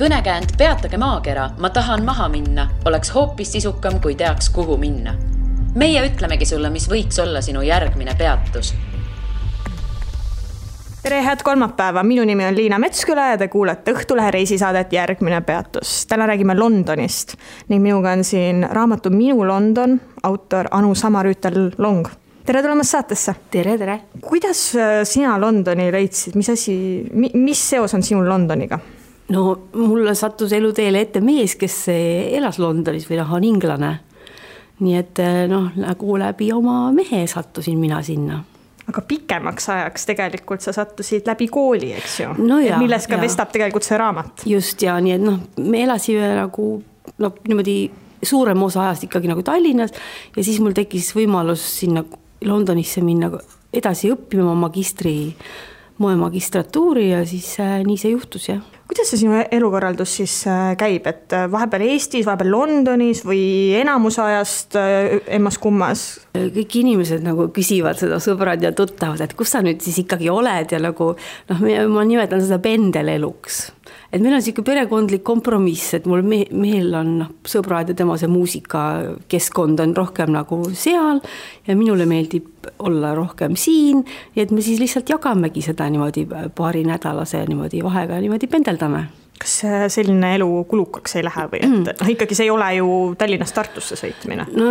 Kõnekäänd Peatage maakera, ma tahan maha minna, oleks hoopis sisukam, kui teaks, kuhu minna. Meie ütlemegi sulle, mis võiks olla sinu järgmine peatus. Tere, head kolmapäeva. Minu nimi on Liina Metsküla ja te kuulete Õhtulehe reisisaadet Järgmine peatus. Täna räägime Londonist ning minuga on siin raamatu Minu London, autor Anu Samarüütel Long. Tere tulemast saatesse. Tere. Kuidas sina Londoni leidsid? Mis seos on sinul Londoniga? No mulle sattus eluteele ette mees, kes elas Londonis või on inglane. Nii et nagu läbi oma mehe sattusin mina sinna. Aga pikemaks ajaks tegelikult sa sattusid läbi kooli, eks ju? No ja, milles ka vestab tegelikult see raamat. Just ja, nii et me elasime nagu niimoodi suurem osa ajast ikkagi nagu Tallinnas ja siis mul tekkis võimalus sinna Londonisse minna edasi õppima moemagistratuuri ja siis nii see juhtus, jah. Kuidas see sinu elukorraldus siis käib, et vahepeal Eestis, vahepeal Londonis või enamus ajast emmas kummas? Kõik inimesed nagu küsivad seda, sõbrad ja tuttavad, et kus sa nüüd siis ikkagi oled ja nagu, ma nimetan seda pendeleluks. Et meil on siuke perekondlik kompromiss, et mul mehel on sõbrad ja tema see muusikakeskkond on rohkem nagu seal ja minule meeldib olla rohkem siin, ja et me siis lihtsalt jagamegi seda niimoodi paari nädalase niimoodi vahega niimoodi pendeldame. Kas selline elu kulukaks ei lähe või? Et ikkagi see ei ole ju Tallinnast Tartusse sõitmine. No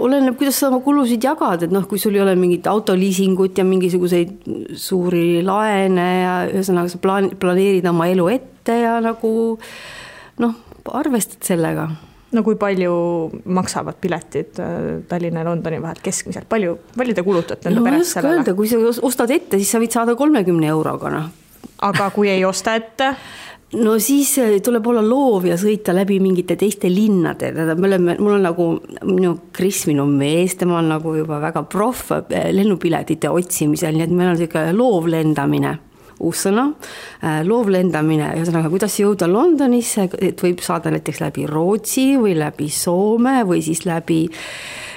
oleneb, kuidas sa oma kulusid jagad, et kui sul ei ole mingit autoliisingut ja mingisuguseid suuri laene ja ühesõnaga sa planeerid oma elu ette ja nagu arvestad sellega. No kui palju maksavad piletid Tallinna ja Londoni vahel keskmiselt? Palju te kulutate enda peres sellele? Öelda, kui sa ostad ette, siis sa võid saada 30 euroga. Aga kui ei osta ette? No siis tuleb olla loov ja sõita läbi mingite teiste linnade. Mul on nagu minu mees, tema on nagu juba väga proff lennupiletite otsimisel, nii et meil on selline loovlendamine. Uus sõna, loovlendamine, ühesõnaga, kuidas jõuda Londonisse, et võib saada näiteks läbi Rootsi või läbi Soome või siis läbi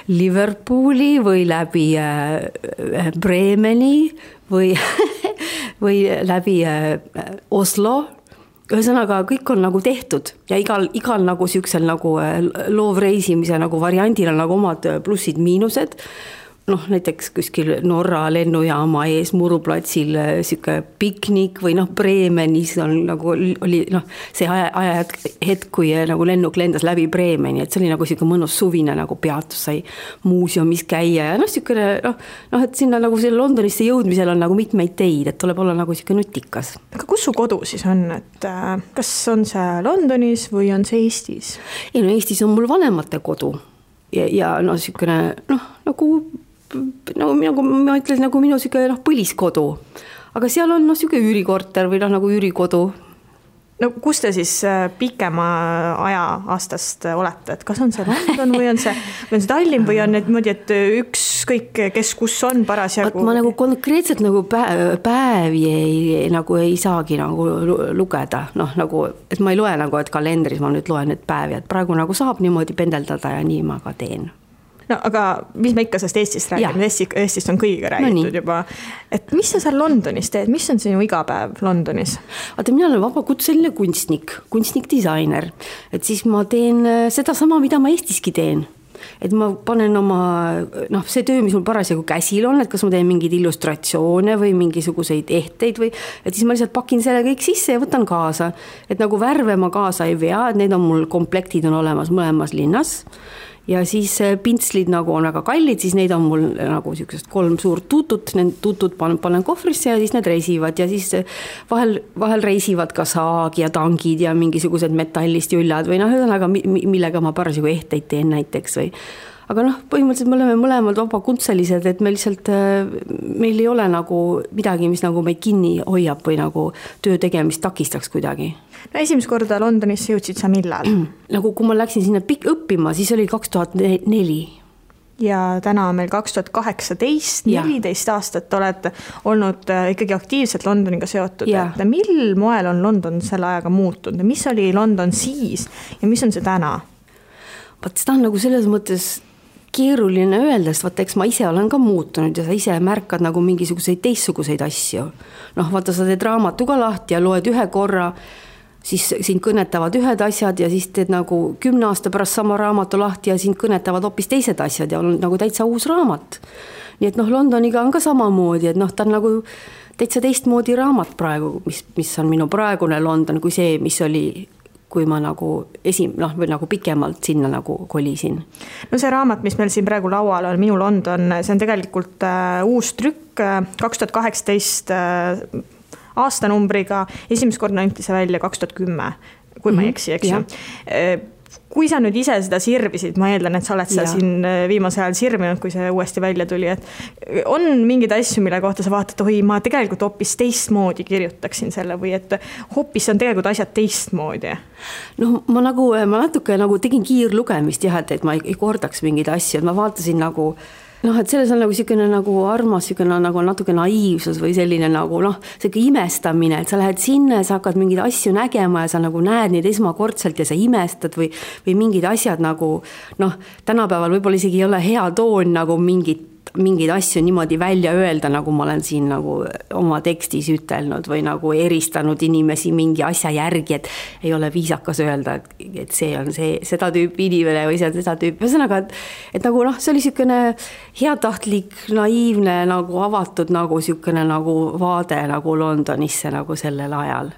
Liverpooli või läbi Bremeni või läbi Oslo. Ühesõnaga, kõik on nagu tehtud ja igal nagu siuksel nagu loovreisimise nagu variandil on nagu omad plussid, miinused. Näiteks kuskil Norra lennujaama ees Muruplatsil siuke piknik või Bremenis on nagu oli see hetk, kui nagu lennuk lendas läbi Bremeni, et see oli nagu siuke mõnus suvine nagu peatus, sai muuseumis käia ja siukene, et sinna nagu selle Londonisse jõudmisel on nagu mitmeid teid, et tuleb olla nagu siuke nutikas. Aga kus su kodu siis on, et kas on see Londonis või on see Eestis? Ei, Eestis on mul vanemate kodu ja siukene, nagu ma ütlen, nagu minu siuke põliskodu, aga seal on siuke üürikorter või nagu üürikodu. No kus te siis pikema aja aastast olete, et kas on see London või on see Tallinn või on niimoodi, et ükskõik kes kus on parasjagu? Ma nagu konkreetselt nagu päevi ei saagi nagu lugeda, et ma ei loe nagu, et kalendris ma nüüd loen need päevi, et praegu nagu saab niimoodi pendeldada ja nii ma ka teen. No aga mis me ikka sellest Eestist räägime? Eestist on kõigiga räägitud juba. Et mis sa seal Londonis teed? Mis on sinu igapäev Londonis? Mina olen vabakutseline kunstnik-disainer. Et siis ma teen seda sama, mida ma Eestiski teen. Et ma panen oma, see töö, mis mul parasjagu käsil on, et kas ma teen mingeid illustratsioone või mingisuguseid ehteid või, et siis ma lihtsalt pakin selle kõik sisse ja võtan kaasa. Et nagu värve ma kaasa ei vea, et need on mul komplektid on olemas mõlemas linnas. Ja siis pintslid nagu on väga kallid, siis neid on mul nagu 3 suurt tutut, need tutut panen kohvrisse ja siis need reisivad ja siis vahel reisivad ka saag ja tangid ja mingisugused metallist jüljad või millega ma parasjagu ehteid teen näiteks või. Aga põhimõtteliselt me oleme mõlemad vabakutselised, et meil ei ole nagu midagi, mis nagu meid kinni hoiab või nagu töö tegemist takistaks kuidagi. No esimest korda Londonisse jõudsid sa millal? Nagu kui ma läksin sinna õppima, siis oli 2004. Ja täna on meil 2018, 14 aastat oled olnud ikkagi aktiivselt Londoniga seotud. Et mil moel on London selle ajaga muutunud? Mis oli London siis ja mis on see täna? Seda on nagu selles mõttes keeruline öelda, sest eks ma ise olen ka muutunud ja sa ise märkad nagu mingisuguseid teistsuguseid asju. Vaata, sa teed raamatu ka lahti ja loed ühe korra, siis sind kõnetavad ühed asjad ja siis teed nagu 10 aasta pärast sama raamatu lahti ja sind kõnetavad hoopis teised asjad ja on nagu täitsa uus raamat. Nii et Londoniga on ka samamoodi, et ta on nagu täitsa teistmoodi raamat praegu, mis on minu praegune London kui see, mis oli, kui ma nagu või nagu pikemalt sinna nagu kolisin. No see raamat, mis meil siin praegu laual on, Minu London, see on tegelikult uus trükk 2018 aastanumbriga, esimest korda anti see välja 2010, kui ma ei eksi, eks ju. Kui sa nüüd ise seda sirvisid, ma eeldan, et sa oled seda siin viimase ajal sirvinud, kui see uuesti välja tuli, et on mingeid asju, mille kohta sa vaatad, oi, ma tegelikult hoopis teistmoodi kirjutaksin selle või et hoopis on tegelikult asjad teistmoodi? No ma natuke nagu tegin kiirlugemist jah, et ma ei kordaks mingeid asju, et ma vaatasin nagu et selles on nagu selline nagu armas, selline nagu natuke naiivsus või selline nagu selline imestamine, et sa lähed sinna ja sa hakkad mingeid asju nägema ja sa nagu näed neid esmakordselt ja sa imestad või mingid asjad nagu tänapäeval võib-olla isegi ei ole hea toon nagu mingeid asju niimoodi välja öelda, nagu ma olen siin nagu oma tekstis ütelnud või nagu eristanud inimesi mingi asja järgi, et ei ole viisakas öelda, et see on seda tüüpi inimene või see on seda tüüpi. Ühesõnaga, et nagu see oli selline heatahtlik, naiivne, nagu avatud nagu selline nagu vaade nagu Londonisse nagu sellel ajal.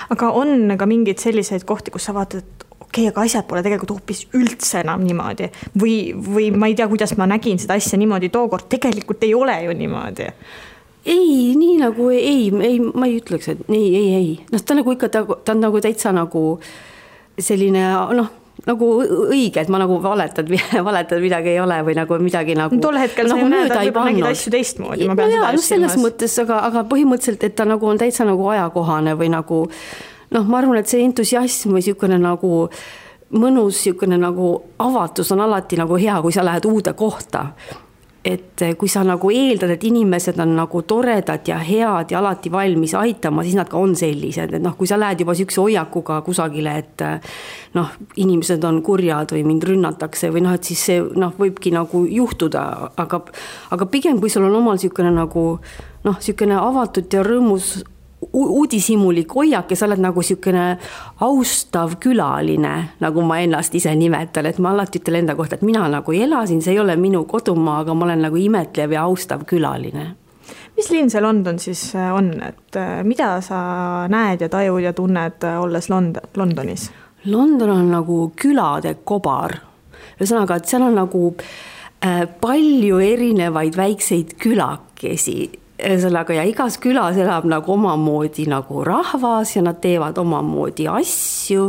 Aga on ka mingeid selliseid kohti, kus sa vaatad, aga asjad pole tegelikult hoopis üldse enam niimoodi või ma ei tea, kuidas ma nägin seda asja niimoodi tookord, tegelikult ei ole ju niimoodi. Ei, nii nagu ma ei ütleks, et ei. Ta nagu ikka, ta on nagu täitsa nagu selline, nagu õige, et ma nagu valetad midagi ei ole või nagu midagi nagu tol hetkel sa ju nägid asju teistmoodi. Selles mõttes, aga põhimõtteliselt, et ta nagu on täitsa nagu ajakohane või nagu ma arvan, et see entusiasm või selline nagu mõnus selline nagu avatus on alati nagu hea, kui sa lähed uude kohta. Et kui sa nagu eeldad, et inimesed on nagu toredad ja head ja alati valmis aitama, siis nad ka on sellised. Et kui sa lähed juba sükse hoiakuga kusagile, et inimesed on kurjad või mind rünnatakse või et siis see võibki nagu juhtuda. Aga pigem, kui sul on omal selline nagu selline avatud ja rõõmus uudishimulik hoiak ja sa oled nagu selline austav külaline, nagu ma ennast ise nimetan, et ma alati ütlen enda kohta, et mina nagu elasin, see ei ole minu kodumaa, aga ma olen nagu imetlev ja austav külaline. Mis linn see London siis on, et mida sa näed ja tajud ja tunned olles Londonis? London on nagu külade kobar. Ühesõnaga, et seal on nagu palju erinevaid väikseid külakesi. Ja igas külas elab nagu omamoodi nagu rahvas ja nad teevad omamoodi asju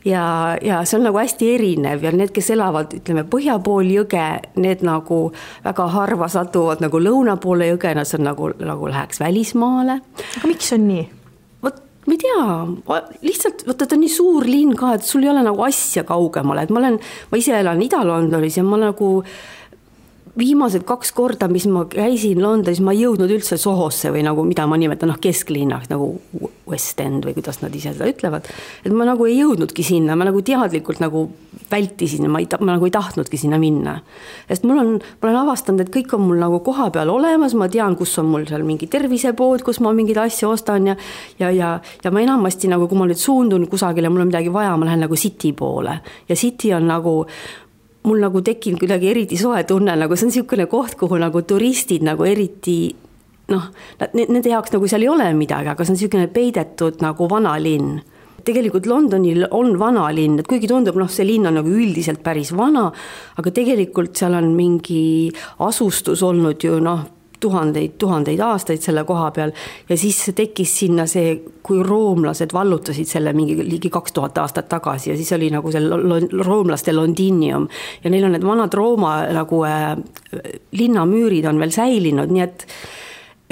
ja see on nagu hästi erinev ja need, kes elavad, ütleme, põhja pool jõge, need nagu väga harva satuvad nagu lõuna poole jõge, nad on nagu läheks välismaale. Aga miks on nii? Ma ei tea, lihtsalt ta on nii suur linn ka, et sul ei ole nagu asja kaugemale, et ma ise elan Ida-Londonis ja ma nagu viimased 2 korda, mis ma käisin Londonis, ma ei jõudnud üldse Sohosse või nagu, mida ma nimetan kesklinnaks, nagu West End või kuidas nad ise seda ütlevad. Et ma nagu ei jõudnudki sinna, ma nagu teadlikult nagu vältisin, ma nagu ei tahtnudki sinna minna. Sest ma olen avastanud, et kõik on mul nagu koha peal olemas, ma tean, kus on mul seal mingi tervisepood, kus ma mingid asju ostan ja ma enamasti nagu, kui ma nüüd suundun kusagile, mul on midagi vaja, ma lähen nagu City poole ja City on nagu mul nagu tekkinud kuidagi eriti soe tunne, nagu see on selline koht, kuhu nagu turistid nagu eriti, nende jaoks nagu seal ei ole midagi, aga see on selline peidetud nagu vana linn. Tegelikult Londonil on vana linn, et kuigi tundub, see linn on nagu üldiselt päris vana, aga tegelikult seal on mingi asustus olnud ju tuhandeid aastaid selle koha peal ja siis tekkis sinna see, kui roomlased vallutasid selle mingi ligi 2000 aastat tagasi ja siis oli nagu see roomlaste Londinium ja neil on need vanad Rooma nagu linnamüürid on veel säilinud, nii et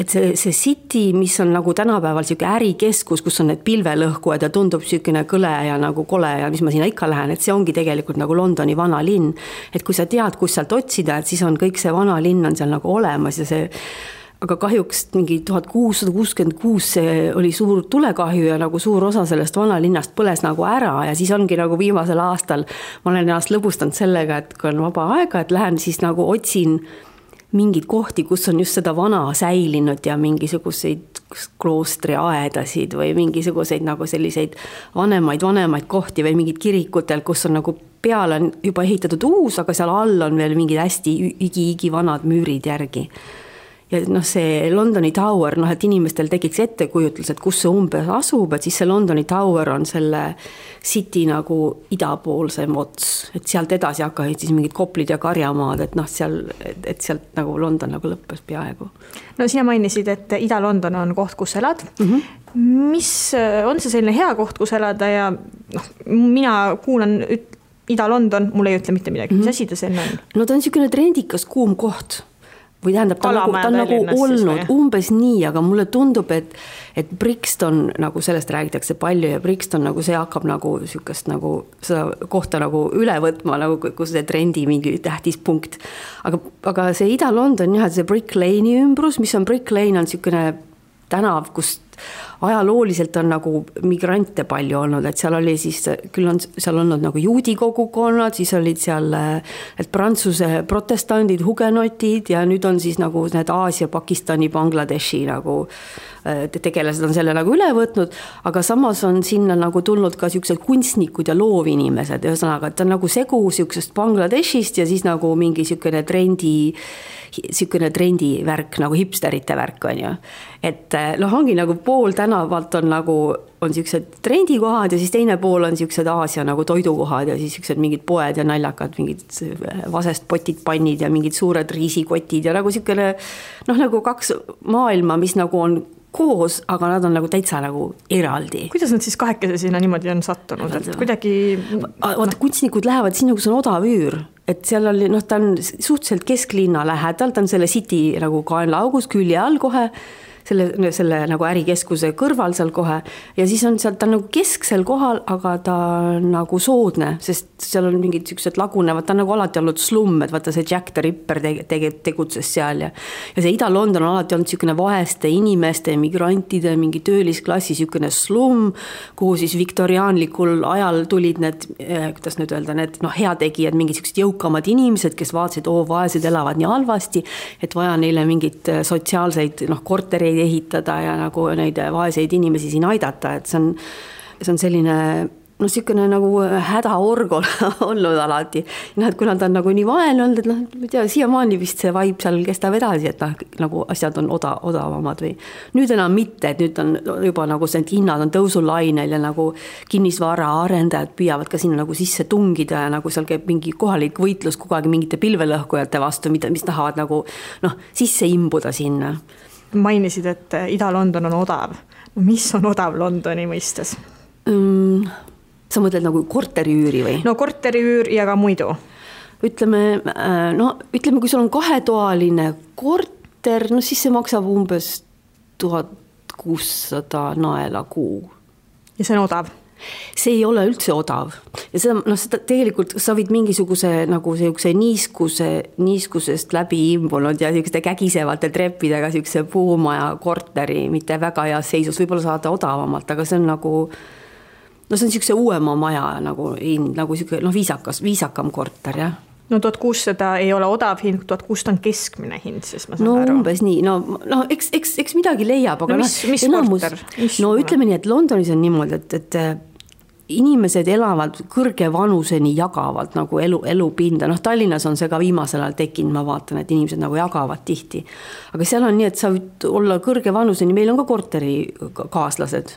see City, mis on nagu tänapäeval selline ärikeskus, kus on need pilvelõhkujad ja tundub selline kõle ja nagu kole ja mis ma sinna ikka lähen, et see ongi tegelikult nagu Londoni vana linn. Et kui sa tead, kus sealt otsida, et siis on kõik see vana linn on seal nagu olemas ja see, aga kahjuks mingi 1666 see oli suur tulekahju ja nagu suur osa sellest vana linnast põles nagu ära ja siis ongi nagu viimasel aastal ma olen ennast lõbustanud sellega, et kui on vaba aega, et lähen siis nagu otsin mingid kohti, kus on just seda vana säilinud ja mingisuguseid kloostriaedasid või mingisuguseid nagu selliseid vanemaid kohti või mingid kirikutel, kus on nagu peale on juba ehitatud uus, aga seal all on veel mingid hästi igi vanad müürid järgi. Ja noh, see Londoni Tower, noh, et inimestel tekiks ettekujutlus, et kus see umbes asub, et siis see Londoni Tower on selle city nagu idapoolsem ots, et sealt edasi hakkasid siis mingid Koplid ja Karjamaad, et noh, et sealt nagu London nagu lõppes peaaegu. No sina mainisid, et Ida-London on koht, kus elad. Mis on see selline hea koht, kus elada ja noh, mina kuulan Ida-London, mulle ei ütle mitte midagi, mis asi ta selline on? No ta on niisugune trendikas kuum koht. Või tähendab, ta on nagu olnud umbes nii, aga mulle tundub, et Brixton, nagu sellest räägitakse palju ja Brixton nagu see hakkab nagu sükast nagu seda kohta nagu üle võtma, nagu kus see trendi mingi tähtis punkt. Aga see Ida-London, jah, see Brick Lane'i ümbrus, mis on Brick Lane on niisugune tänav, kus ajalooliselt on nagu migrante palju olnud, et seal oli siis, küll on seal olnud nagu juudi kogukonnad, siis olid seal Prantsuse protestandid, hugenotid ja nüüd on siis nagu need Aasia, Pakistani, Bangladeshi nagu tegelased on selle nagu üle võtnud, aga samas on sinna nagu tulnud ka siuksed kunstnikud ja loovinimesed, ühesõnaga, et ta on nagu segu siuksest Bangladeshist ja siis nagu mingi siukene trendi värk, nagu hipsterite värk on ju. Et noh, ongi nagu pool tänavalt on nagu, on siuksed trendikohad ja siis teine pool on siuksed Aasia nagu toidukohad ja siis siuksed mingid poed ja naljakad, mingid vasest potid, pannid ja mingid suured riisikotid ja nagu siukene, noh nagu kaks maailma, mis nagu on koos, aga nad on nagu täitsa nagu eraldi. Kuidas nad siis kahekese sinna niimoodi on sattunud? Et kuidagi... Vaata, kunstnikud lähevad sinna, kus on odav üür. Et seal oli, noh, ta on suhteliselt kesklinna lähedal, ta on selle city nagu kaenlaaugus külje all kohe, selle nagu ärikeskuse kõrval seal kohe ja siis on seal, ta on nagu kesksel kohal, aga ta on nagu soodne, sest seal on mingid siuksed lagunevad, ta on nagu alati olnud slumm, et vaata see Jack the Ripper tegutses seal ja see Ida-London on alati olnud siukene vaeste inimeste, migrantide, mingi töölisklassi siukene slumm, kuhu siis viktoriaanlikul ajal tulid need, kuidas nüüd öelda, need noh, heategijad, mingid siuksed jõukamad inimesed, kes vaatasid, vaesed elavad nii halvasti, et vaja neile mingit sotsiaalseid noh, kortereid ehitada ja nagu neid vaeseid inimesi siin aidata, et see on selline noh, siukene nagu hädaorg olnud alati. Noh, et kuna ta on nagu nii vaene olnud, et noh, ma tea, siiamaani vist see vibe seal kestab edasi, et noh, nagu asjad on odavamad või nüüd enam mitte, et nüüd on juba nagu see hinnad on tõusulainel ja nagu kinnisvara arendajad püüavad ka sinna nagu sisse tungida ja nagu seal käib mingi kohalik võitlus kogu aeg mingite pilvelõhkujate vastu, mis tahavad nagu noh, sisse imbuda sinna. Mainisid, et Ida-London on odav. Mis on odav Londoni mõistes? Sa mõtled nagu korteriüüri või? No korteriüür ja ka muidu. Ütleme, kui sul on 2-toaline korter, no siis see maksab umbes 1600 naela kuu. Ja see on odav? See ei ole üldse odav. Ja seda tegelikult sa võid mingisuguse nagu niiskusest läbi imbunud ja siukeste kägisevate treppidega siukse puumaja korteri, mitte väga heas seisus, võib-olla saada odavamalt, aga see on nagu no see on siukse uuema maja nagu siuke, noh, viisakam korter, jah. No 1600 ei ole odav hind, 1600 on keskmine hind, siis ma saan aru. No umbes nii, no eks midagi leiab, aga mis korter? No ütleme nii, et Londonis on niimoodi, et inimesed elavad kõrge vanuseni jagavad nagu elupinda, noh Tallinnas on see ka viimasel ajal tekkinud, ma vaatan, et inimesed nagu jagavad tihti, aga seal on nii, et sa võid olla kõrge vanuseni, meil on ka korterikaaslased,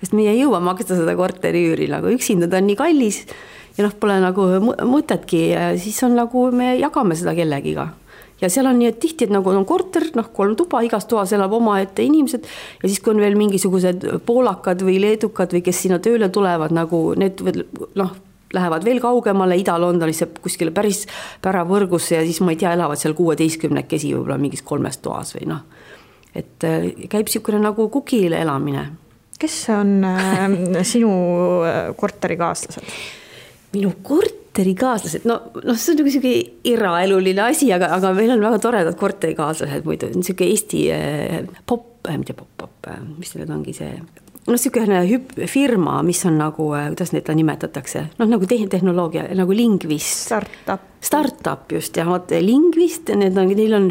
sest meie ei jõua maksta seda korteriüüri, nagu üksinda ta on nii kallis ja noh, pole nagu mõtetki, siis on nagu me jagame seda kellegiga. Ja seal on nii, et tihti, et nagu on korter, noh 3 tuba, igas toas elab oma ette inimesed ja siis kui on veel mingisugused poolakad või leedukad või kes sinna tööle tulevad, nagu need noh, lähevad veel kaugemale Ida-Londonisse kuskile päris päravõrgusse ja siis ma ei tea, elavad seal 16-kesi võib-olla mingis 3 toas või noh. Et käib siukene nagu kukile elamine. Kes on sinu korterikaaslased? Minu korterikaaslased, no see on niisugune eraeluline asi, aga meil on väga toredad korterikaaslased muidu, niisugune Eesti pop, mis need ongi see no niisugune firma, mis on nagu, kuidas neid nimetatakse, noh nagu tehnoloogia, nagu Lingvist. Startup just ja Lingvist, neil on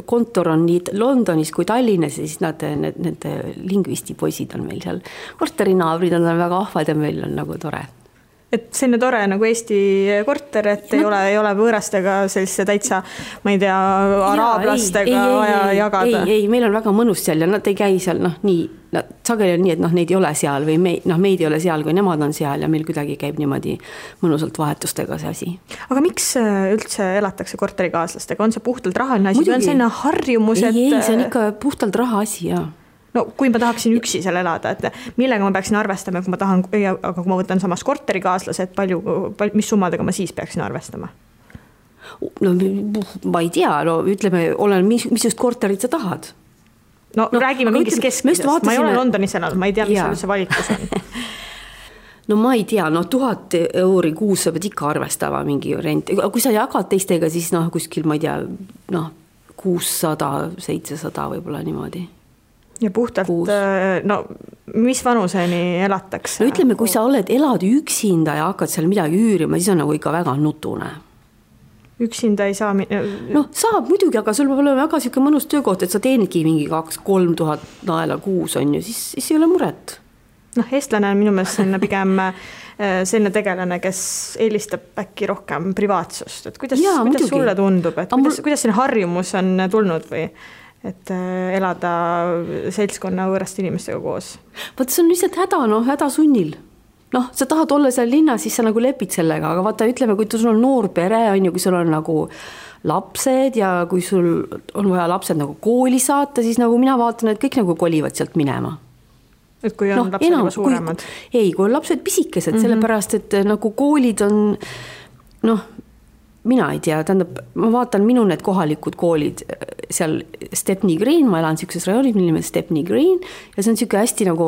kontor on nii Londonis kui Tallinnas ja siis need Lingvisti poisid on meil seal. Korterinaabrid on väga ahvad ja meil on nagu tore. Et selline tore nagu Eesti korter, et ei ole võõrastega sellise täitsa, ma ei tea, araablastega vaja jagada. Ei, meil on väga mõnus seal ja nad ei käi seal, sageli on nii, et neid ei ole seal või meid ei ole seal, kui nemad on seal ja meil kuidagi käib niimoodi mõnusalt vahetustega see asi. Aga miks üldse elatakse korterikaaslastega? On see puhtalt rahaline asi või on selline harjumus? Ei, see on ikka puhtalt raha asi, jah. No kui ma tahaksin üksi seal elada, et millega ma peaksin arvestama, kui ma tahan, aga kui ma võtan samas korterikaaslased, mis summadega ma siis peaksin arvestama? No ma ei tea, ütleme, mis just korterit sa tahad. No räägime mingist keskmisest, ma ei ole Londonis elanud, ma ei tea, mis seal üldse valikus on. No ma ei tea, 1000 euri kuus sa pead ikka arvestama mingi rent. Kui sa jagad teistega, siis kuskil, ma ei tea, 600-700 võib-olla niimoodi. Ja puhtalt, mis vanuseni elatakse? No ütleme, kui sa elad üksinda ja hakkad seal midagi üürima, siis on nagu ikka väga nutune. Üksinda ei saa... saab muidugi, aga sul peab olema väga siuke mõnus töökoht, et sa teenidki mingi 2-3 tuhat naela kuus on ju, siis ei ole muret. Eestlane on minu meelest pigem selline tegelane, kes eelistab äkki rohkem privaatsust. Et kuidas sulle tundub, et kuidas selline harjumus on tulnud või... et elada seltskonna võõrast inimestega koos. Vaata, see on lihtsalt häda sunnil. Sa tahad olla seal linnas, siis sa nagu lepid sellega, aga vaata, ütleme, kui sul on noor pere, on ju, kui sul on nagu lapsed ja kui sul on vaja lapsed nagu kooli saata, siis nagu mina vaatan, et kõik nagu kolivad sealt minema. Et kui on lapsed juba suuremad? Ei, kui on lapsed pisikesed, sellepärast, et nagu koolid on, mina ei tea, tähendab, ma vaatan minu need kohalikud koolid seal Stepney Green, ma elan siukses rajoonis, mille nimelt Stepney Green ja see on siuke hästi nagu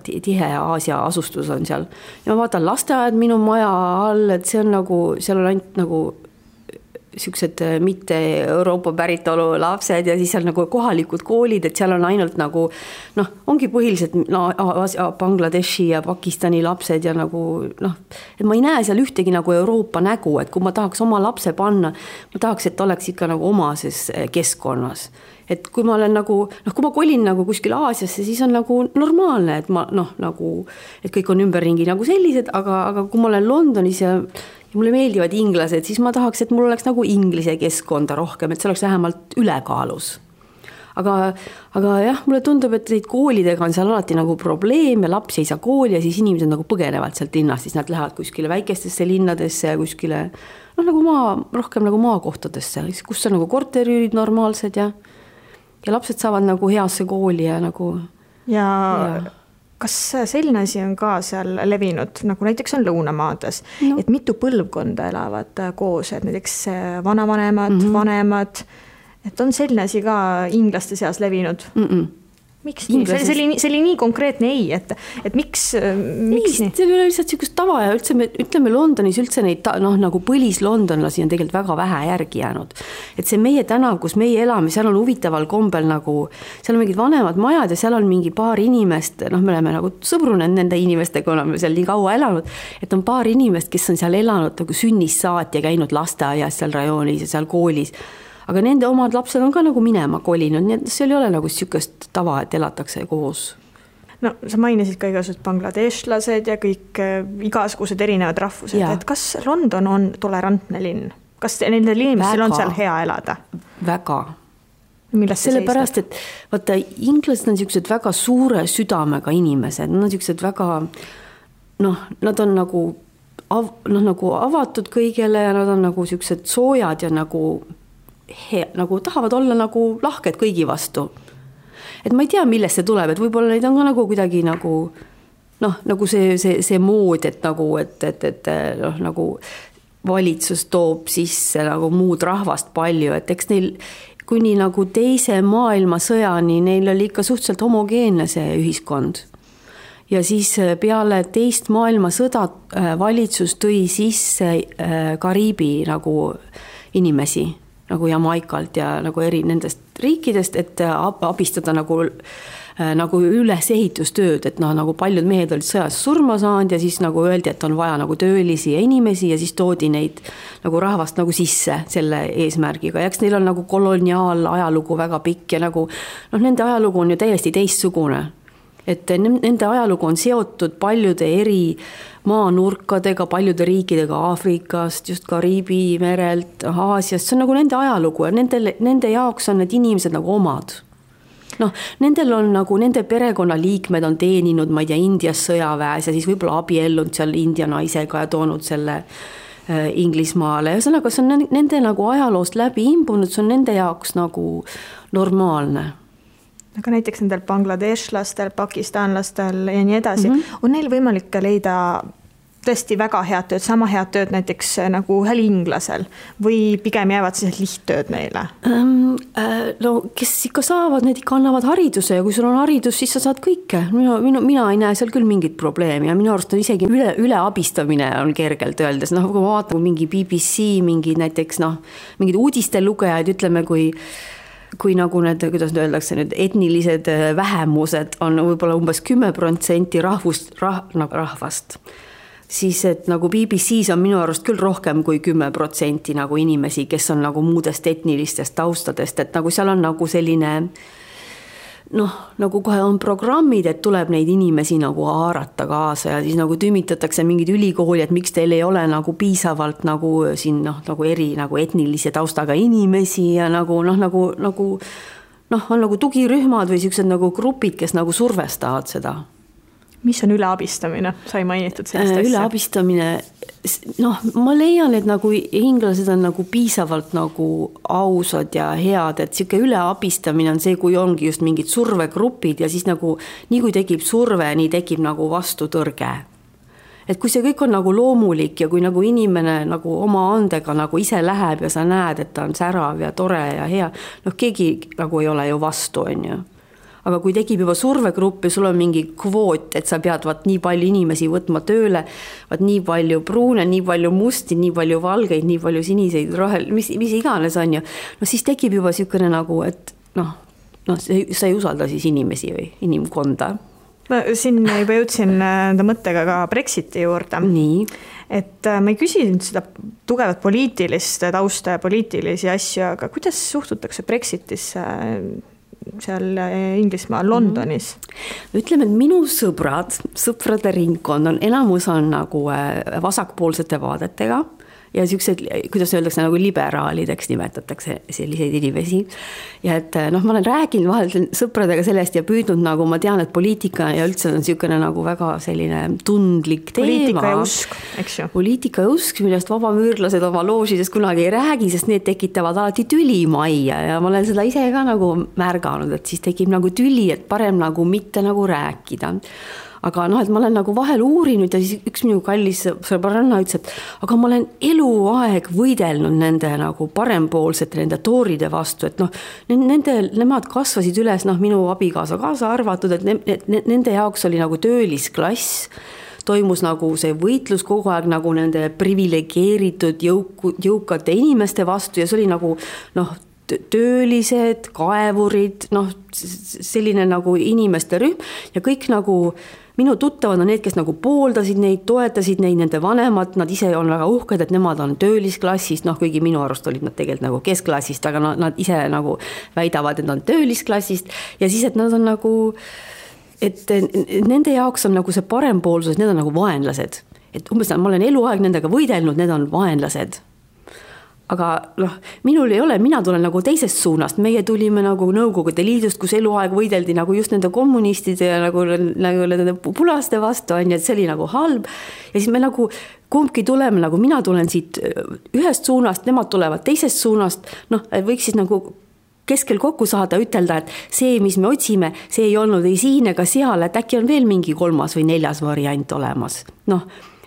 tihe Aasia asustus on seal. Ja ma vaatan lasteaed minu maja all, et see on nagu, seal on ainult nagu siuksed mitte Euroopa päritolu lapsed ja siis seal nagu kohalikud koolid, et seal on ainult nagu, ongi põhiliselt Bangladeshi ja Pakistani lapsed ja nagu, et ma ei näe seal ühtegi nagu Euroopa nägu, et kui ma tahaks oma lapse panna, ma tahaks, et oleks ikka nagu omases keskkonnas. Et kui ma olen nagu, kui ma kolin nagu kuskil Aasiasse, siis on nagu normaalne, et ma nagu, et kõik on ümberringi nagu sellised, aga kui ma olen Londonis ja mulle meeldivad inglased, siis ma tahaks, et mul oleks nagu inglise keskkonda rohkem, et see oleks vähemalt ülekaalus. Aga jah, mulle tundub, et neid koolidega on seal alati nagu probleem ja lapsi ei saa kooli ja siis inimesed nagu põgenevad sealt linnast, siis nad lähevad kuskile väikestesse linnadesse ja kuskile, nagu rohkem nagu maakohtadesse, kus on nagu korteriüürid normaalsed ja lapsed saavad nagu heasse kooli ja nagu... Ja. Kas selline asi on ka seal levinud, nagu näiteks on Lõunamaades, et mitu põlvkonda elavad koos, et näiteks vanavanemad, vanemad, et on selline asi ka inglaste seas levinud? Miks nii? See oli nii konkreetne ei, et miks nii? See ei ole lihtsalt siukest tava ja ütleme Londonis üldse neid nagu põlislondonlasi on tegelikult väga vähe järgi jäänud. Et see meie tänav, kus meie elame, seal on huvitaval kombel nagu, seal on mingid vanemad majad ja seal on mingi paar inimest, me oleme nagu sõbrunenud nende inimestega, oleme seal nii kaua elanud, et on paar inimest, kes on seal elanud nagu sünnist saati ja käinud lasteaias seal rajoonis ja seal koolis. Aga nende omad lapsed on ka nagu minema kolinud, nii et seal ei ole nagu siukest tava, et elatakse koos. Sa mainisid ka igasugused bangladeshlased ja kõik igasugused erinevad rahvused, et kas London on tolerantne linn? Kas nendel inimestel on seal hea elada? Väga. Millest see sellepärast, et vaata, inglased on siuksed väga suure südamega inimesed, nad on siuksed väga, nad on nagu, nagu avatud kõigele ja nad on nagu siuksed soojad ja nagu tahavad olla nagu lahked kõigi vastu. Et ma ei tea, millest see tuleb, et võib-olla neid on ka nagu kuidagi nagu nagu see mood, et nagu, et nagu valitsus toob sisse nagu muud rahvast palju, et eks neil kuni nagu teise maailmasõjani neil oli ikka suhteliselt homogeenne see ühiskond. Ja siis peale teist maailmasõda valitsus tõi sisse Kariibi nagu inimesi nagu Jamaikalt ja nagu eri nendest riikidest, et abistada nagu nagu ülesehitustööd, et nagu paljud mehed olid sõjas surma saanud ja siis nagu öeldi, et on vaja nagu töölisi ja inimesi ja siis toodi neid nagu rahvast nagu sisse selle eesmärgiga. Ja eks neil on nagu koloniaal ajalugu väga pikk ja nagu nende ajalugu on ju täiesti teistsugune. Et nende ajalugu on seotud paljude eri maanurkadega, paljude riikidega Aafrikast, just Kariibi merelt, Aasiast, see on nagu nende ajalugu ja nende jaoks on need inimesed nagu omad. Nendel on nagu, nende perekonnaliikmed on teeninud, ma ei tea, Indias sõjaväes ja siis võib-olla abiellunud seal India naisega ja toonud selle Inglismaale. Ja sellega see on nende nagu ajaloost läbi imbunud, see on nende jaoks nagu normaalne. Aga näiteks nendel bangladeshlastel, pakistanlastel ja nii edasi, on neil võimalik leida tõesti väga head tööd, sama head tööd näiteks nagu ühel inglasel või pigem jäävad siis lihttööd neile? Kes ikka saavad, need ikka annavad hariduse ja kui sul on haridus, siis sa saad kõike. Mina ei näe seal küll mingit probleemi ja minu arust on isegi üle abistamine on kergelt öeldes. Kui ma vaatan mingi BBC, mingi näiteks mingid uudistelugejad, ütleme, kui nagu need, kuidas öeldakse, need etnilised vähemused on võib-olla umbes 10% rahvast, siis et nagu BBC-s on minu arust küll rohkem kui 10% nagu inimesi, kes on nagu muudest etnilistest taustadest, et nagu seal on nagu selline nagu kohe on programmid, et tuleb neid inimesi nagu haarata kaasa ja siis nagu tümitatakse mingid ülikooli, et miks teil ei ole nagu piisavalt nagu siin nagu eri nagu etnilise taustaga inimesi ja nagu on nagu tugirühmad või sellised nagu grupid, kes nagu survestavad seda. Mis on üleabistamine? Sai mainitud sellest asja. Üleabistamine, ma leian, et nagu inglased on nagu piisavalt nagu ausad ja head, et siuke üleabistamine on see, kui ongi just mingid survegrupid ja siis nagu nii kui tekib surve, nii tekib nagu vastutõrge. Et kui see kõik on nagu loomulik ja kui nagu inimene nagu oma andega nagu ise läheb ja sa näed, et ta on särav ja tore ja hea, keegi nagu ei ole ju vastu, on ju. Aga kui tekib juba survegrupp ja sul on mingi kvoot, et sa pead nii palju inimesi võtma tööle, nii palju pruune, nii palju musti, nii palju valgeid, nii palju siniseid, rohel, mis iganes on ju, siis tekib juba siukene nagu, et sa ei usalda siis inimesi või inimkonda. Ma siin juba jõudsin enda mõttega ka Brexiti juurde. Nii. Et ma ei küsinud seda tugevat poliitilist tausta ja poliitilisi asju, aga kuidas suhtutakse Brexitisse seal Inglismaal, Londonis? Ütleme, et minu sõprade ringkond on enamus on nagu vasakpoolsete vaadetega ja siuksed, kuidas öeldakse, nagu liberaalideks nimetatakse selliseid inimesi. Ja et ma olen rääkinud vahel sõpradega sellest ja püüdnud nagu, ma tean, et poliitika ja üldse on siukene nagu väga selline tundlik teema. Poliitika ja usk, eks ju. Poliitika ja usk, millest vabamüürlased oma loožidest kunagi ei räägi, sest need tekitavad alati tüli majja ja ma olen seda ise ka nagu märganud, et siis tekib nagu tüli, et parem nagu mitte nagu rääkida. Aga et ma olen nagu vahel uurinud ja siis üks minu kallis sõbranna ütles, et aga ma olen eluaeg võidelnud nende nagu parempoolsete, nende tooride vastu, et nemad kasvasid üles, minu abikaasa kaasa arvatud, et nende jaoks oli nagu töölisklass, toimus nagu see võitlus kogu aeg nagu nende privilegeeritud jõukate inimeste vastu ja see oli nagu töölised, kaevurid, selline nagu inimeste rühm ja kõik nagu minu tuttavad on need, kes nagu pooldasid neid, toetasid neid, nende vanemad, nad ise on väga uhked, et nemad on töölisklassist, kuigi minu arust olid nad tegelikult nagu keskklassist, aga nad ise nagu väidavad, et nad on töölisklassist ja siis, et nad on nagu, et nende jaoks on nagu see parempoolsus, need on nagu vaenlased. Et umbes ma olen eluaeg nendega võidelnud, need on vaenlased. Aga minul ei ole, mina tulen nagu teisest suunast, meie tulime nagu Nõukogude Liidust, kus eluaeg võideldi nagu just nende kommunistide ja nagu nende pulaste vastu on, et see oli nagu halb ja siis me nagu kumbki tuleme, nagu mina tulen siit ühest suunast, nemad tulevad teisest suunast, võiks siis nagu keskel kokku saada, ütelda, et see, mis me otsime, see ei olnud ei siin ega seal, et äkki on veel mingi 3. või 4. variant olemas,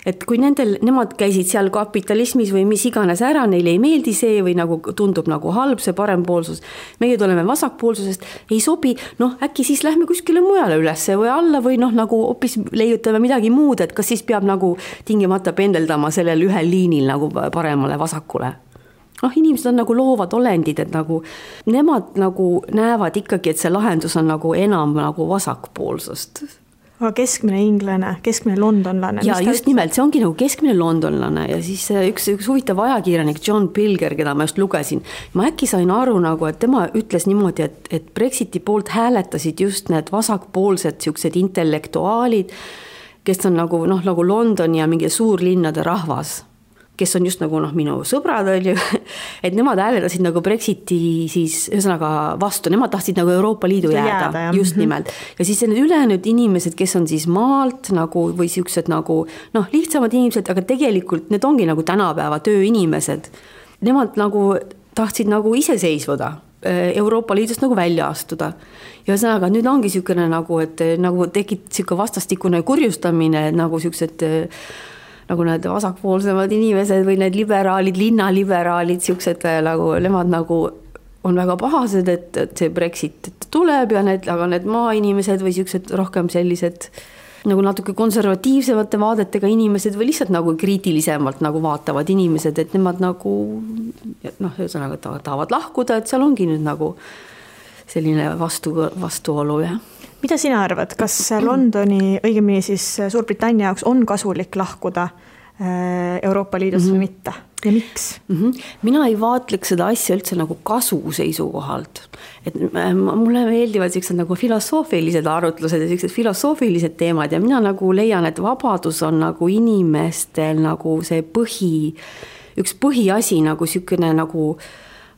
et kui nemad käisid seal kapitalismis või mis iganes ära, neile ei meeldi see või nagu tundub nagu halb see parempoolsus, meie tuleme vasakpoolsusest, ei sobi, äkki siis lähme kuskile mujale ülesse või alla või nagu hoopis leiutame midagi muud, et kas siis peab nagu tingimata pendeldama sellel ühel liinil nagu paremale vasakule. inimesed on nagu loovad olendid, et nagu nemad nagu näevad ikkagi, et see lahendus on nagu enam nagu vasakpoolsust. Aga keskmine inglane, keskmine londonlane. Ja just nimelt, see ongi nagu keskmine londonlane ja siis üks huvitav ajakirjanik John Pilger, keda ma just lugesin, ma äkki sain aru nagu, et tema ütles niimoodi, et Brexiti poolt hääletasid just need vasakpoolsed siuksed intellektuaalid, kes on nagu Londoni ja mingi suurlinnade rahvas, kes on just nagu minu sõbrad oli, et nemad hääletasid nagu Brexiti siis ühesõnaga vastu, nemad tahtsid nagu Euroopa Liidu jääda just nimelt. Ja siis need ülejäänud inimesed, kes on siis maalt nagu või siuksed nagu lihtsamad inimesed, aga tegelikult need ongi nagu tänapäeva tööinimesed. Nemad nagu tahtsid nagu iseseisvuda, Euroopa Liidust nagu välja astuda. Ja ühesõnaga nüüd ongi siukene nagu, et nagu tekib siuke vastastikune kurjustamine, nagu siuksed nagu need vasakpoolsemad inimesed või need liberaalid, linnaliberaalid, siuksed nagu, nemad nagu on väga pahased, et see Brexit tuleb ja aga need maainimesed või siuksed rohkem sellised nagu natuke konservatiivsemate vaadetega inimesed või lihtsalt nagu kriitilisemalt nagu vaatavad inimesed, et nemad nagu ühesõnaga tahavad lahkuda, et seal ongi nüüd nagu selline vastuolu, jah. Mida sina arvad, kas Londoni, õigemini siis Suurbritannia jaoks on kasulik lahkuda Euroopa Liidust või mitte ja miks? Mina ei vaatleks seda asja üldse nagu kasu seisukohalt. Et mulle meeldivad sellised nagu filosoofilised arutlused ja sellised filosoofilised teemad ja mina nagu leian, et vabadus on nagu inimestel nagu see üks põhiasi nagu selline nagu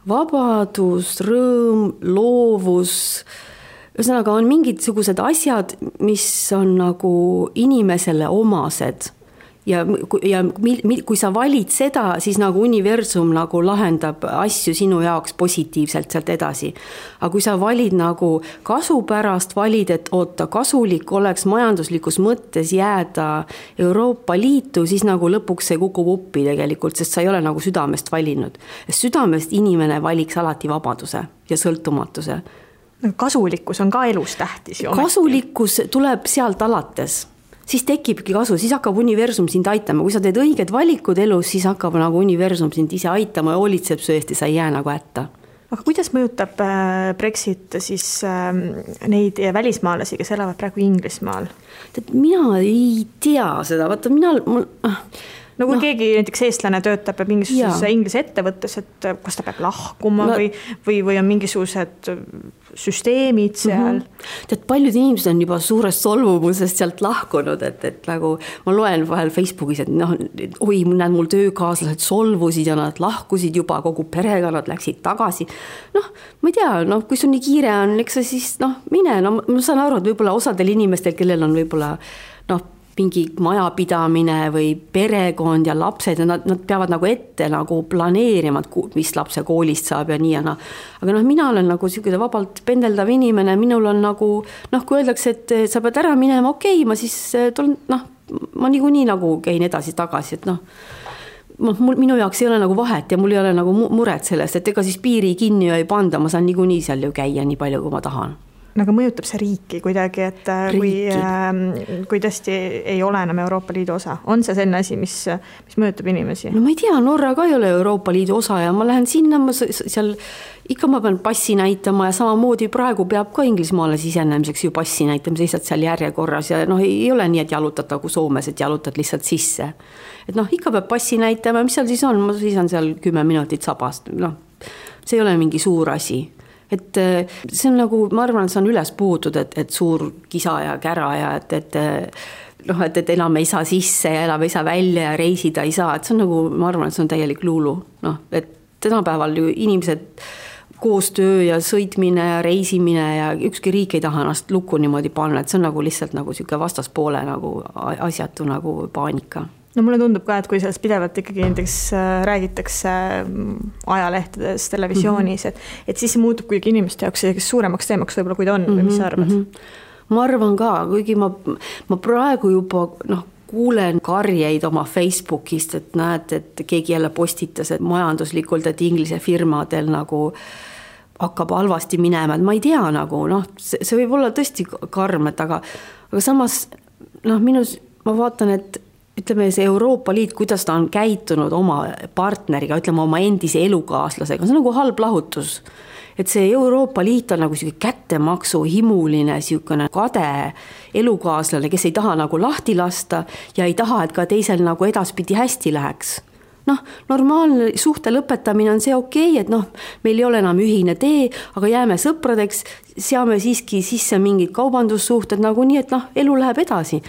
vabadus, rõõm, loovus. Ühesõnaga on mingisugused asjad, mis on nagu inimesele omased ja kui sa valid seda, siis nagu universum nagu lahendab asju sinu jaoks positiivselt sealt edasi. Aga kui sa valid nagu kasu pärast, valid, et kasulik oleks majanduslikus mõttes jääda Euroopa Liitu, siis nagu lõpuks see kukub uppi tegelikult, sest sa ei ole nagu südamest valinud. Südamest inimene valiks alati vabaduse ja sõltumatuse. Kasulikkus on ka elus tähtis. Kasulikkus tuleb sealt alates. Siis tekibki kasu, siis hakkab universum sind aitama. Kui sa teed õiged valikud elus, siis hakkab nagu universum sind ise aitama ja hoolitseb su eest ja sa ei jää nagu hätta. Aga kuidas mõjutab Brexit siis neid välismaalasi, kes elavad praegu Inglismaal? Mina ei tea seda. Vaata, kui keegi näiteks eestlane töötab mingisuguses Inglise ettevõttes, et kas ta peab lahkuma või on mingisugused süsteemid seal. Tead, paljud inimesed on juba suurest solvumusest sealt lahkunud, et nagu ma loen vahel Facebookis, et mul töökaaslased solvusid ja nad lahkusid juba kogu perega, nad läksid tagasi. Ma ei tea, kui sul nii kiire on, eks sa siis mine, ma saan aru, et võib-olla osadel inimestel, kellel on võib-olla mingi majapidamine või perekond ja lapsed ja nad peavad nagu ette nagu planeerima, mis lapse koolist saab ja nii ja Aga mina olen nagu selline vabalt pendeldav inimene, minul on nagu, kui öeldakse, et sa pead ära minema, ma siis tulen, ma niikuinii nagu käin edasi-tagasi, et minu jaoks ei ole nagu vahet ja mul ei ole nagu muret sellest, et ega siis piiri kinni ei panda, ma saan niikuinii seal ju käia nii palju, kui ma tahan. Aga mõjutab see riiki kuidagi, et kui tõesti ei ole enam Euroopa Liidu osa? On see selline asi, mis mõjutab inimesi? No ma ei tea, Norra ka ei ole Euroopa Liidu osa ja ma lähen sinna, seal ikka ma pean passi näitama ja samamoodi praegu peab ka Inglismaale sisenemiseks ju passi näitama, seisad seal järjekorras ja ei ole nii, et jalutad nagu Soomes, et jalutad lihtsalt sisse. Et ikka peab passi näitama, mis seal siis on? Ma seisan seal 10 minutit sabast, see ei ole mingi suur asi. Et see on nagu, ma arvan, et see on üles puhutud, et suur kisa ja kära ja et enam ei saa sisse ja enam ei saa välja ja reisida ei saa, et see on nagu, ma arvan, et see on täielik luulu. Et tänapäeval ju inimesed koostöö ja sõitmine ja reisimine ja ükski riik ei taha ennast lukku niimoodi panna, et see on nagu lihtsalt nagu siuke vastaspoole nagu asjatu nagu paanika. Mulle tundub ka, et kui sellest pidevalt ikkagi näiteks räägitakse ajalehtedes, televisioonis, et siis see muutub kuigi inimeste jaoks suuremaks teemaks võib-olla, kui ta on, või mis sa arvad? Ma arvan ka, kuigi ma praegu juba kuulen karjeid oma Facebookist, et näed, et keegi jälle postitas, et majanduslikult, et Inglise firmadel nagu hakkab halvasti minema, et ma ei tea nagu, see võib olla tõesti karm, aga samas minus ma vaatan, et ütleme, see Euroopa Liit, kuidas ta on käitunud oma partneriga, ütleme oma endise elukaaslasega, see on nagu halb lahutus. Et see Euroopa Liit on nagu selline kättemaksu himuline, selline kade elukaaslane, kes ei taha nagu lahti lasta ja ei taha, et ka teisel nagu edaspidi hästi läheks. Normaalne suhte lõpetamine on see okei, et meil ei ole enam ühine tee, aga jääme sõpradeks, seame siiski sisse mingid kaubandussuhted nagu nii, et elu läheb edasi.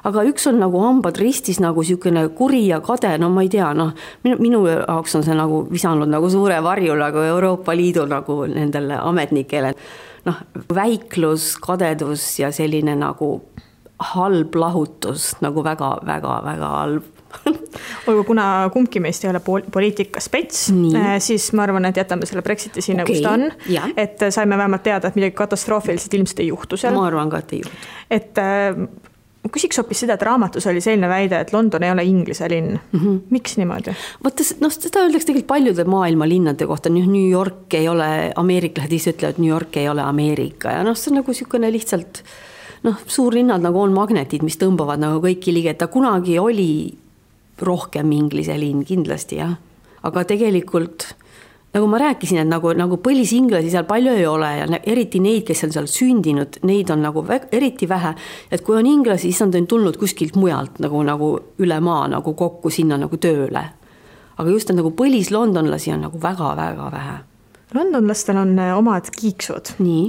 Aga üks on nagu hambad ristis nagu selline kuri ja kade, ma ei tea, minu jaoks on see nagu visanud nagu suure varju nagu Euroopa Liidu nagu nendele ametnikele. Väiklus, kadedus ja selline nagu halb lahutus, nagu väga, väga, väga halb. Olgu, kuna kumbki meist ei ole poliitikaspets, siis ma arvan, et jätame selle Brexiti sinna, kus ta on. Et saime vähemalt teada, et midagi katastroofiliselt ilmselt ei juhtu seal. Ma arvan ka, et ei juhtu. Et ma küsiks hoopis seda, et raamatus oli selline väide, et London ei ole Inglise linn. Miks niimoodi? Seda öeldakse tegelikult paljude maailma linnade kohta. New York ei ole, ameeriklased ise ütlevad, et New York ei ole Ameerika. Ja see on nagu selline lihtsalt, suurlinnad nagu on magnetid, mis tõmbavad nagu kõiki ligi, et ta kunagi oli rohkem Inglise linn kindlasti, jah. Aga tegelikult, nagu ma rääkisin, et nagu põlisinglasi seal palju ei ole ja eriti neid, kes on seal sündinud, neid on nagu eriti vähe. Et kui on inglasi, siis on tulnud kuskilt mujalt nagu üle maa nagu kokku sinna nagu tööle. Aga just nagu põlis-londonlasi on nagu väga-väga vähe. Londonlastel on omad kiiksud. Nii.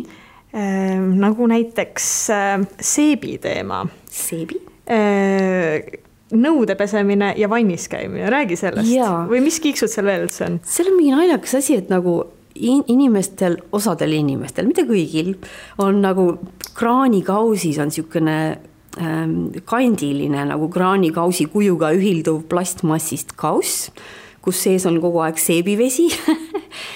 Nagu näiteks seebi teema. Seebi? Nõude pesemine ja vannis käimine, räägi sellest. Ja. Või mis kiiksud seal veel üldse on? See on mingi naljakas asi, et nagu inimestel, osadel inimestel, mitte kõigil, on nagu kraanikausis on niisugune kandiline nagu kraanikausi kujuga ühilduv plastmassist kauss, kus sees on kogu aeg seebivesi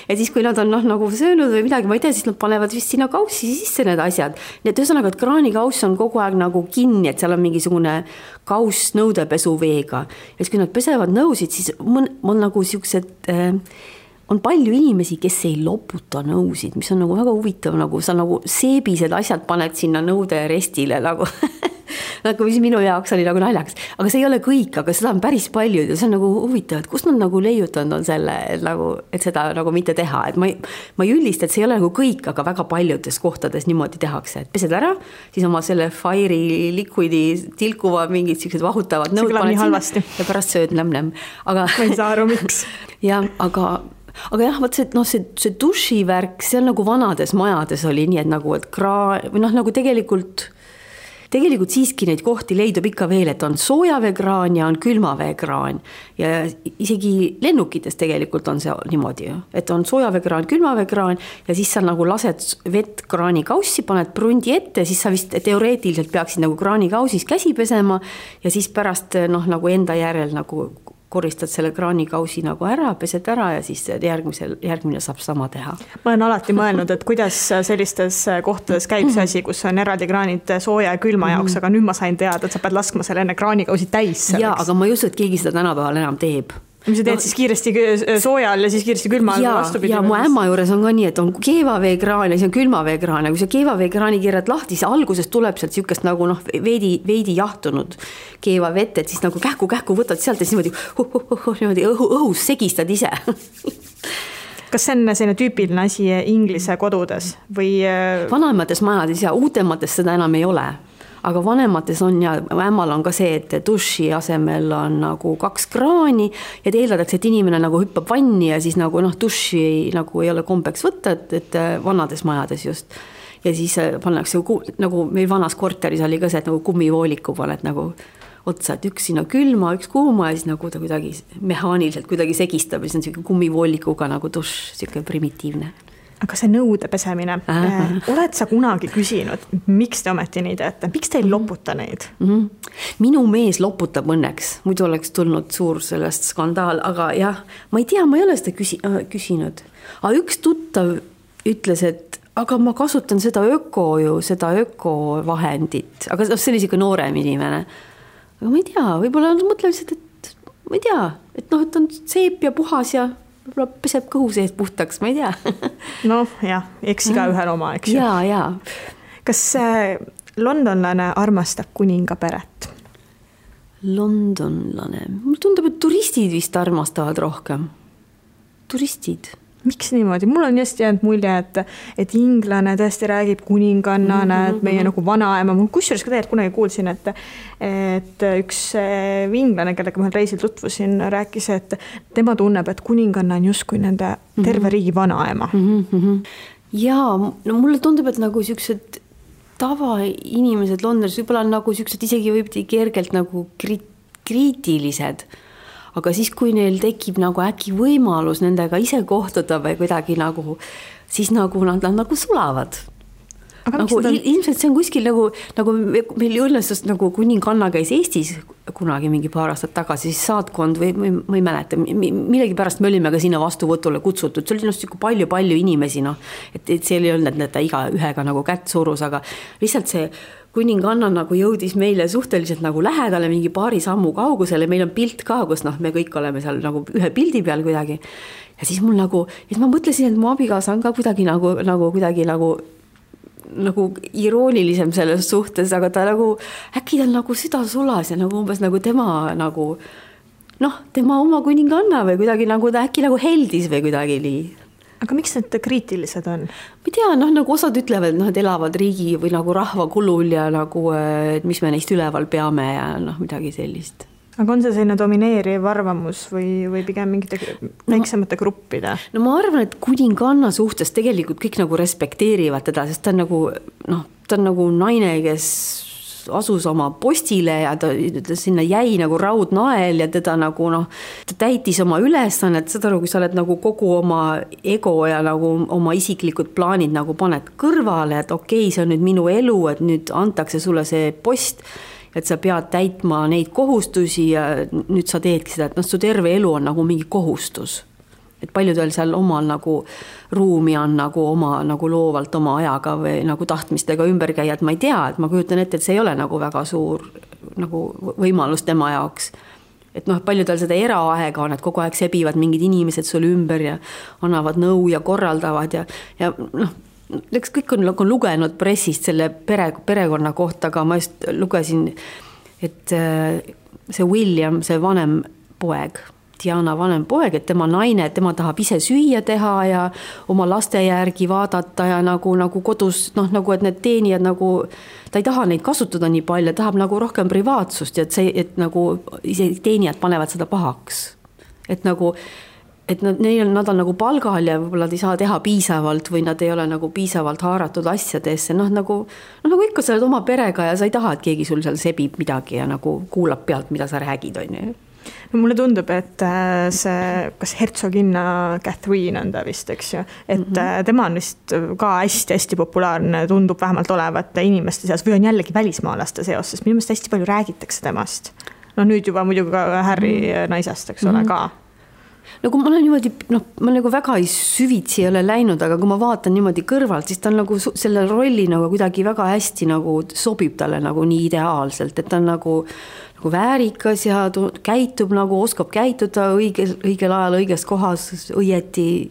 ja siis kui nad on nagu söönud või midagi, ma ei tea, siis nad panevad vist sinna kaussi sisse need asjad. Nii et ühesõnaga, et kraanikauss on kogu aeg nagu kinni, et seal on mingisugune kauss nõudepesuveega. Ja siis kui nad pesevad nõusid, siis on nagu siuksed, on palju inimesi, kes ei loputa nõusid, mis on nagu väga huvitav, nagu sa nagu seebised asjad paned sinna nõude restile nagu nagu mis minu jaoks oli nagu naljaks. Aga see ei ole kõik, aga seda on päris palju ja see on nagu huvitav, et kus nad nagu leiutanud on selle, et seda nagu mitte teha. Et ma ei üllista, et see ei ole nagu kõik, aga väga paljudes kohtades niimoodi tehakse. Et pesed ära, siis oma selle Fire'i liquidi tilkuva mingid sellised vahutavad nõud paned sinna ja pärast sööd nämm-nämm. Aga ma ei saa aru, miks. Ja, aga jah, võt see dušivärk, see on nagu vanades majades oli nii, et nagu, et või nagu tegelikult siiski neid kohti leidub ikka veel, et on soojaveekraan ja on külmaveekraan ja isegi lennukites tegelikult on see niimoodi, et on soojaveekraan, külmaveekraan ja siis sa nagu lased vett kraanikaussi, paned prundi ette, siis sa vist teoreetiliselt peaksid nagu kraanikausis käsi pesema ja siis pärast nagu enda järel nagu koristad selle kraanikausi nagu ära, pesed ära ja siis järgmine saab sama teha. Ma olen alati mõelnud, et kuidas sellistes kohtades käib see asi, kus on eraldi kraanid sooja ja külma jaoks, aga nüüd ma sain teada, et sa pead laskma selle enne kraanikausi täis. Jaa, aga ma ei usu, et keegi seda tänapäeval enam teeb. Mis sa teed siis kiiresti soojal ja siis kiiresti külma vastupidi? Ja mu ämma juures on ka nii, et on keevaveekraan ja siis on külmaveekraan ja kui sa keevaveekraani keerad lahti, siis alguses tuleb sealt siukest nagu veidi jahtunud keevavett, et siis nagu kähku võtad sealt ja siis niimoodi õhus segistad ise. Kas see on selline tüüpiline asi Inglise kodudes? Või... Vanemates majades ja uutemates seda enam ei ole. Aga vanemates on ja ämmal on ka see, et duši asemel on nagu 2 kraani ja eeldatakse, et inimene nagu hüppab vanni ja siis nagu duši nagu ei ole kombeks võtta, et vanades majades just. Ja siis pannakse nagu meil vanas korteris oli ka see, et nagu kummivooliku paned nagu otsa, et üks sinna külma, üks kuuma ja siis nagu ta kuidagi mehaaniliselt kuidagi segistab ja siis on selline kummivoolikuga nagu duš, selline primitiivne. Aga see nõude pesemine, oled sa kunagi küsinud, miks te ometi nii teete? Miks te ei loputa neid? Minu mees loputab õnneks, muidu oleks tulnud suur sellest skandaal, aga jah, ma ei tea, ma ei ole seda küsinud. Aga üks tuttav ütles, et aga ma kasutan seda ökovahendit, aga see oli siuke noorem inimene. Aga ma ei tea, võib-olla mõtle lihtsalt, et ma ei tea, et on seep ja puhas ja võib-olla peseb kõhu sees puhtaks, ma ei tea. Noh, jah, eks iga ühel oma, eks ju. Jaa. Kas londonlane armastab kuninga peret? Londonlane. Mulle tundub, et turistid vist armastavad rohkem. Turistid. Miks niimoodi? Mul on just jäänud mulje, et inglane tõesti räägib kuningannana, et meie nagu vanaema. Mul kusjuures ka tegelikult kunagi kuulsin, et üks inglane, kellega ma reisil tutvusin, rääkis, et tema tunneb, et kuninganna on justkui nende terve riigi vanaema. Jaa, no mulle tundub, et nagu siuksed tavainimesed Londonis võib-olla on nagu siuksed isegi võib kergelt nagu kriitilised. Aga siis, kui neil tekib nagu äkki võimalus nendega ise kohtuda või kuidagi nagu, siis nagu nad nagu sulavad. Nagu, ilmselt see on kuskil nagu meil õnnestus nagu kuninganna käis Eestis kunagi mingi paar aastat tagasi, siis saatkond või ma ei mäleta, millegi pärast me olime ka sinna vastuvõtule kutsutud, see oli palju inimesi, et see ei olnud, et ta iga ühega nagu kätt surus, aga lihtsalt see kuninganna nagu jõudis meile suhteliselt nagu lähedale mingi paari sammu kaugusele, meil on pilt ka, kus me kõik oleme seal nagu ühe pildi peal kuidagi. Ja siis mul nagu, et ma mõtlesin, et mu abikaasa on ka kuidagi nagu iroonilisem selles suhtes, aga ta nagu, äkki ta nagu süda sulas ja nagu umbes nagu tema nagu, tema oma kuninganna või kuidagi nagu ta äkki nagu heldis või kuidagi nii. Aga miks need kriitilised on? Ma ei tea, nagu osad ütlevad, et elavad riigi või nagu rahva kulul ja nagu, et mis me neist üleval peame ja midagi sellist. Aga on see selline domineeriv arvamus või pigem mingite väiksemate gruppide? No ma arvan, et kuninganna suhtes tegelikult kõik nagu respekteerivad teda, sest ta on nagu naine, kes asus oma postile ja ta sinna jäi nagu raudnael ja teda nagu ta täitis oma ülesannet, seda kui sa oled nagu kogu oma ego ja nagu oma isiklikud plaanid nagu paned kõrvale, et okei, see on nüüd minu elu, et nüüd antakse sulle see post, et sa pead täitma neid kohustusi ja nüüd sa teedki seda, et su terve elu on nagu mingi kohustus. Et paljudel seal omal nagu ruumi on nagu oma nagu loovalt oma ajaga või nagu tahtmistega ümber käia, et ma ei tea, et ma kujutan ette, et see ei ole nagu väga suur nagu võimalus tema jaoks. Et paljudel seda eraaega on, et kogu aeg sebivad mingid inimesed sul ümber ja annavad nõu ja korraldavad ja kõik on lugenud pressist selle perekonna kohta, aga ma just lugesin, et see William, see vanem poeg, Diana vanem poeg, et tema naine, et tema tahab ise süüa teha ja oma laste järgi vaadata ja nagu kodus, nagu et need teenijad nagu, ta ei taha neid kasutada nii palju, tahab nagu rohkem privaatsust ja et nagu ise teenijad panevad seda pahaks. Et nagu, et nad on nagu palgal ja võib-olla ei saa teha piisavalt või nad ei ole nagu piisavalt haaratud asjadesse. Nagu ikka sa oled oma perega ja sa ei taha, et keegi sul seal sebib midagi ja nagu kuulab pealt, mida sa räägid, on ju. No mulle tundub, et see, kas hertsoginna Catherine on ta vist, eks ju, et tema on vist ka hästi populaarne, tundub vähemalt olevat inimeste seas või on jällegi välismaalaste seos, sest minu meelest hästi palju räägitakse temast. Nüüd juba muidugi ka Harry naisest, eks ole, ka. No kui ma olen niimoodi, ma nagu väga süvitsi ei ole läinud, aga kui ma vaatan niimoodi kõrvalt, siis ta on nagu selle rolli nagu kuidagi väga hästi nagu sobib talle nagu nii ideaalselt, et ta on nagu väärikas ja käitub nagu, oskab käituda õigel ajal õiges kohas, õieti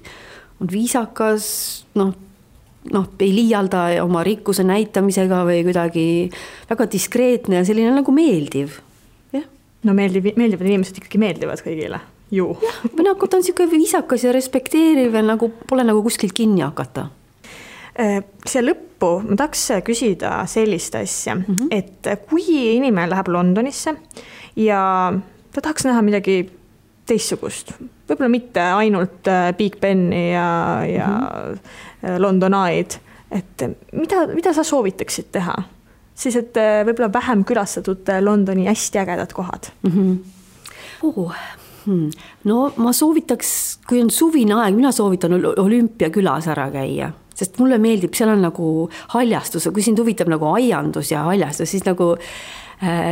on viisakas, ei liialda oma rikkuse näitamisega või kuidagi väga diskreetne ja selline nagu meeldiv. Ja? No meeldivad inimesed ikkagi meeldivad kõigile. Ju. Või nagu ta on siuke viisakas ja respekteeriv ja nagu pole nagu kuskilt kinni hakata. See lõppu ma tahaks küsida sellist asja, et kui inimene läheb Londonisse ja ta tahaks näha midagi teistsugust, võib-olla mitte ainult Big Beni ja London Eye'd, et mida sa soovitaksid teha? Siis, et võib-olla vähem külastatud Londoni hästi ägedad kohad. No ma soovitaks, kui on suvine aeg, mina soovitan Olümpiakülas ära käia, sest mulle meeldib, seal on nagu haljastus, kui sind huvitab nagu aiandus ja haljastus, siis nagu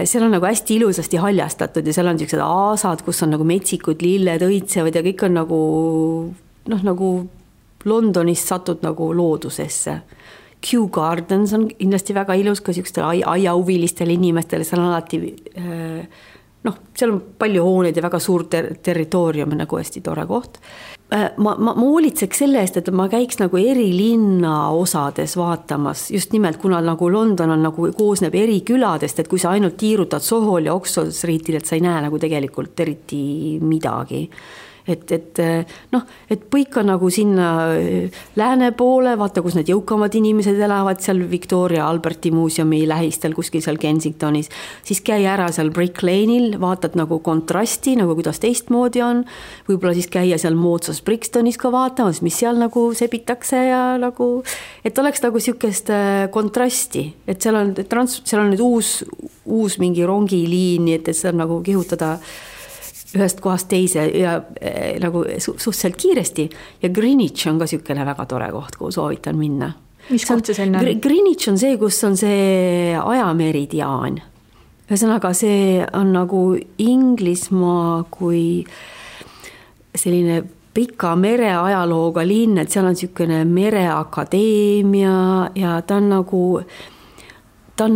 seal on nagu hästi ilusasti haljastatud ja seal on sellised aasad, kus on nagu metsikud lilled õitsevad ja kõik on nagu Londonist satud nagu loodusesse. Kew Gardens on kindlasti väga ilus ka sellistel aiahuvilistele inimestele, seal on alati noh, seal on palju hooneid ja väga suur territoorium, nagu hästi tore koht. Ma hoolitseks selle eest, et ma käiks nagu eri linna osades vaatamas, just nimelt, kuna nagu London on nagu koosneb eri küladest, et kui sa ainult tiirutad Sohol ja Oxford Streetil, et sa ei näe nagu tegelikult eriti midagi. Et põika nagu sinna lääne poole, vaata, kus need jõukamad inimesed elavad, seal Victoria Alberti muuseumi lähistel, kuskil seal Kensingtonis, siis käi ära seal Brick Lane'il, vaatad nagu kontrasti, nagu kuidas teistmoodi on, võib-olla siis käia seal moodsas Brixtonis ka vaatamas, mis seal nagu sebitakse ja nagu, et oleks nagu sükest kontrasti, et seal on nüüd uus mingi rongiliini, et see on nagu kihutada ühest kohast teise ja nagu suhteliselt kiiresti ja Greenwich on ka sükene väga tore koht, kuhu soovitan minna. Mis koht see selline on? Greenwich on see, kus on see ajameridiaan. Ühesõnaga, see on nagu Inglismaa kui selline pika mereajalooga linn, et seal on sükene mereakadeemia ja ta on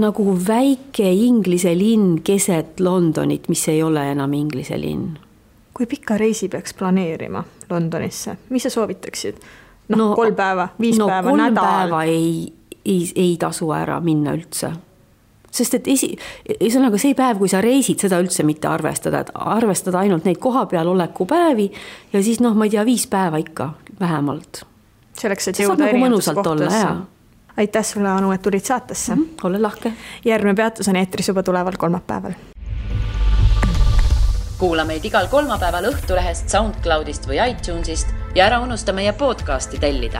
nagu väike inglise linn keset Londonit, mis ei ole enam inglise linn. Kui pika reisi peaks planeerima Londonisse? Mis sa soovitaksid? 3 päeva, 5 päeva, nädal? 3 päeva ei tasu ära minna üldse. Sest et ühesõnaga see päev, kui sa reisid, seda üldse mitte arvestada, et arvestada ainult neid koha peal oleku päevi ja siis ma ei tea, 5 päeva ikka vähemalt. Selleks, et jõuda erinevates kohtasse. Aitäh sulle, Anu, et tulid saatesse. Ole lahke. Järgmine peatus on eetris juba tuleval kolmapäeval. Kuula meid igal kolmapäeval Õhtulehest, SoundCloudist või iTunesist ja ära unusta meie podcasti tellida.